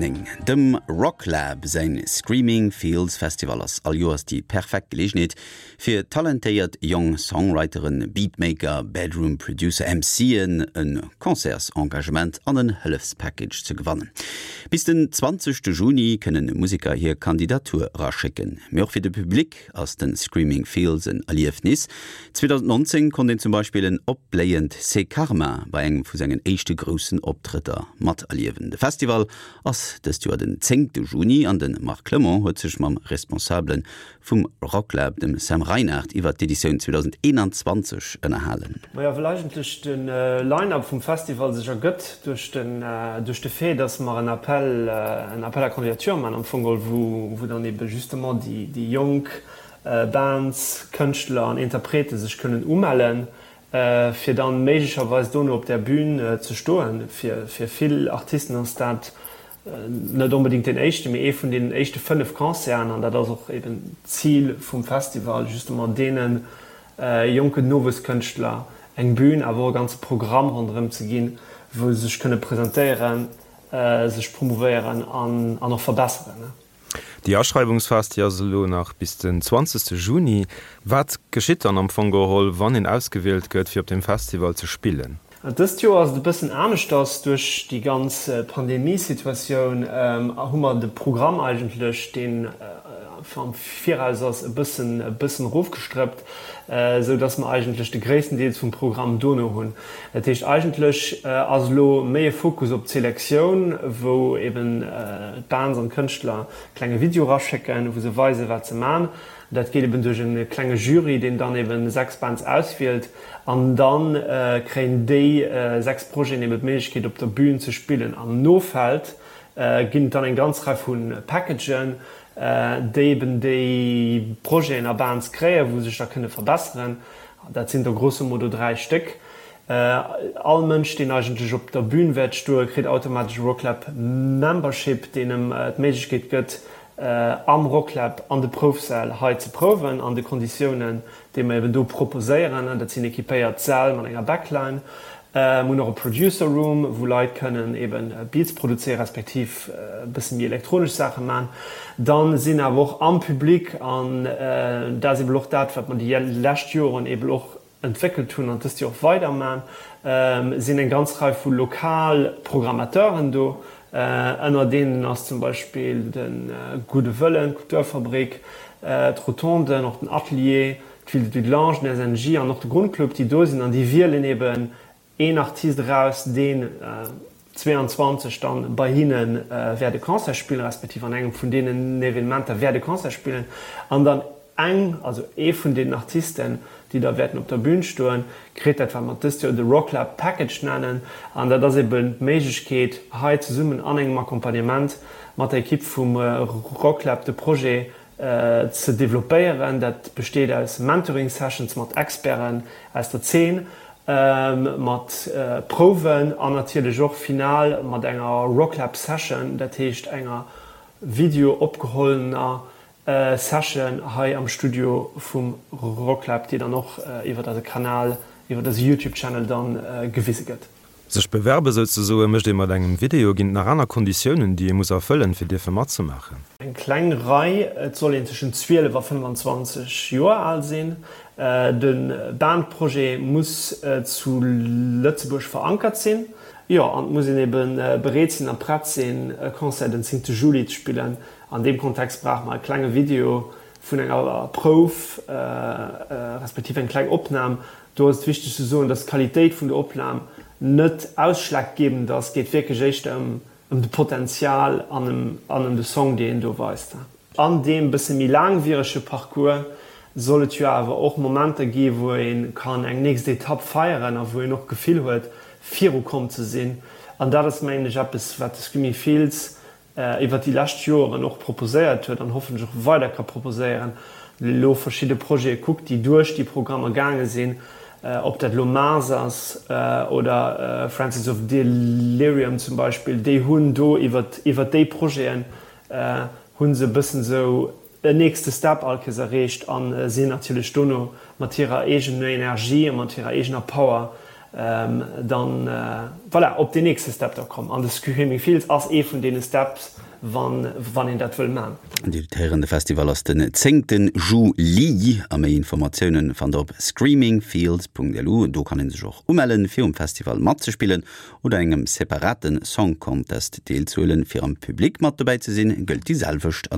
9. Dem Rocklab säin Screaming Fields Festival ass all Joers déi perfekt Geleegenheet fir talentéiert jong Songwriteren, Beatmaker, Bedroom Producer, MCen e Concertsengagement an en Hëllefspackage ze gewannen. Bis den 20 Juni kënnen Museker hir Kandidatur eraschécken. Mee och fir de Public ass den Screaming Fields en Erliefnis. 2019 konnt een zum Beispill en opbléiend C'est Karma bei engem vu sengen éischte groussen Optrëtter materliewen. De Festival ass dëst Joer den zéngte Juni an de Marc Clement huet sech mam Responsabele vum Rocklab, dem Sam Reinard, iwwert d'Editioun 2021 ënnerhalen. Majo, well eigentlech de Line-Up vum Festival sech ergëtt duerch den, duerch de Fait, dass mer en Appel, en Appel à candidature man am Fong geholl, wou, wou dann ebe justement déi, déi jonk Bands, Kënschtler an Interprete sech kënnen umellen, fir dann méiglecherweis dono op där Bühn ze stoen. Fir, fir vill Artisten ass dat net onbedéngt deen éischten, mee ee vun deenen éischte 5 Concerten, an dat ass och eben d'Zil vum Festival, justement deene jonken Nowuesskënschtler eng Bühn, awer och e ganze Programm ronderëm ze ginn, wou se sech kënne presentéieren, sech promouvéieren an och verbesseren. Déi Aschreiwungsphas, déi ass elo nach bis den 20 Juni. Wat geschitt dann am Fong geholl, wann een ausgewielt gëtt, fir op deem Festival ze spillen? Dëst Joer ass et e bëssen aneschters. Duerch déi ganz Pandemiesituatioun hu mer de Programm eigentlech, deen am Viraus ass, e bëssen e bëssen erofgestrëppt, esou dass mer eigentlech de gréissten Deels vum Programm dono hunn. Dat heescht, eigentlech ass elo méi e Fokus op d'Selektioun, wou eben d'Bands an d'Kënschtler e klenge Video eraschécken, wou se weisen, wat se man. Dat geet eben duerch e klenge Jury, deen dann eben 6 Bands auswielt an da kréien déi 6 Projeten eben d'Méiglechkeet op der Bühn ze spillen. Am Nofeld ginn et dann eng ganz Rei vu Packagen, déi eben déi Projeten a Bands kréien, wou se sech da kënne verbesseren. Dat sinn der grosso modo 3 Stéck. All Mënsch, deen eigentlech op der Bühn wäert stoen, kritt automatesch e Rocklab Membership, deen em d'Méiglechkeet gëtt, am Rocklab an de Proufsäll hei ze prouwen, an de Konditiounen, déi mer eben do proposéieren. Dat sinn equipéiert Säll mat enger Backline. Mir hunn och e Producer Room, wou Leit kënnen eben Beats produzéieren, respektiv e bësse méi elektronesch Saache man. Dann sinn awer och am Public, an dat ass eben och dat, wat mer déi lescht Joren eben och entwéckelt hunn an dëst Joer och weider man, sinn eng ganz Rei vu lokal Programmateuren do. Ënner deenen ass zum Beispill de Gudde Wëllen, d'Kulturfabrik, d'Rotonden, och den Atelier, d'Ville de Dudelange, den SNJ an och de Grundclub, déi do sinn an déi wielen eben een Artist eraus, deen 22 dann bei hinne wäert e Concert spillen, respektiv an engem vun deenen Evenementer wäert e Concert spillen an dann eng, also ee vun deenen Artisten, déi da wäerten op der Bühn stoen, kritt dat, wat mer dëst Joer de Rocklab Package nennen. An dat ass eben d'Méiglechkeet, hei zesummen an engem Accompagnement mat der Ekipp vum Rocklab de Projet ze developpéieren. Dat besteet aus Mentoring Sessions mat Experten aus der Zeen, mat Prouwen an natierlech och final mat enger Rocklab Session, dat heescht enger Video opgehollener Session hei am Studio vum Rocklab, déi dann och iwwert eise Kanal, iwwert eise Youtube Channel dann gewise gëtt. Sech bewerbe souzesoe mécht ee mat engem Video. Ginn et nach aner Konditiounen, déi ee muss erfëllen, fir dierfe matzemaachen? Eng kleng Rei, Et soll een tëschent 12 a 25 Joer al sinn. De Bandprojet muss zu Lëtzebuerg verankert sinn. Jo, an et muss een ebe bereet sinn a prett sinn, e Concert den 10 Juli ze spillen. An deem Kontext brauche mer e klenge Video vun enger Prouf, respektiv eng kleng Opnam. Do ass et wichteg ze soen, dass d'Qualitéit vun der Opnam net ausschlaggebend ass. Et geet wierklech éischter ëm de Potenzial an ëm de Song, dee een do weist. An deem bësse méi laangwierege Parcours soll et jo awer och Momenter gi wou ee kann eng nächst Etapp feieren a wou een och d'Gefill huet, virukomm ze sinn. An dat ass, mengen ech, eppes, wat de Screaming Fields iwwert déi lescht Joren och proposéiert huet an hoffentlech och weider ka proposéieren, elo verschidde Projete kuckt, déi duerch déi Programmer gaange sinn, ob dat elo Mars ass oder Francis of Delirium zum Beispill, déi hunn do iwwert iwwert déi Projeten hu se e bëssen esou en nächste Step all Kéiers erreecht a sinn natierlech dono mat hirer eegener Energie a mat hirer eegener Power. Dann, voilà, op deen nächste Step da kommen. An de Screaming Fields ass ee vun deene Steps, wann, wann een dat wëll man. Dir hutt héieren, de Festival ass den zéngte Juli a méi Informatiounen fannt der op screamingfields.lu. Do kann ee sech och umellen, fir um Festival matzespillen oder engem separate Song Contest deelzehuelen. Fir am Public mat dobäi ze sinn, gëllt déi selwecht.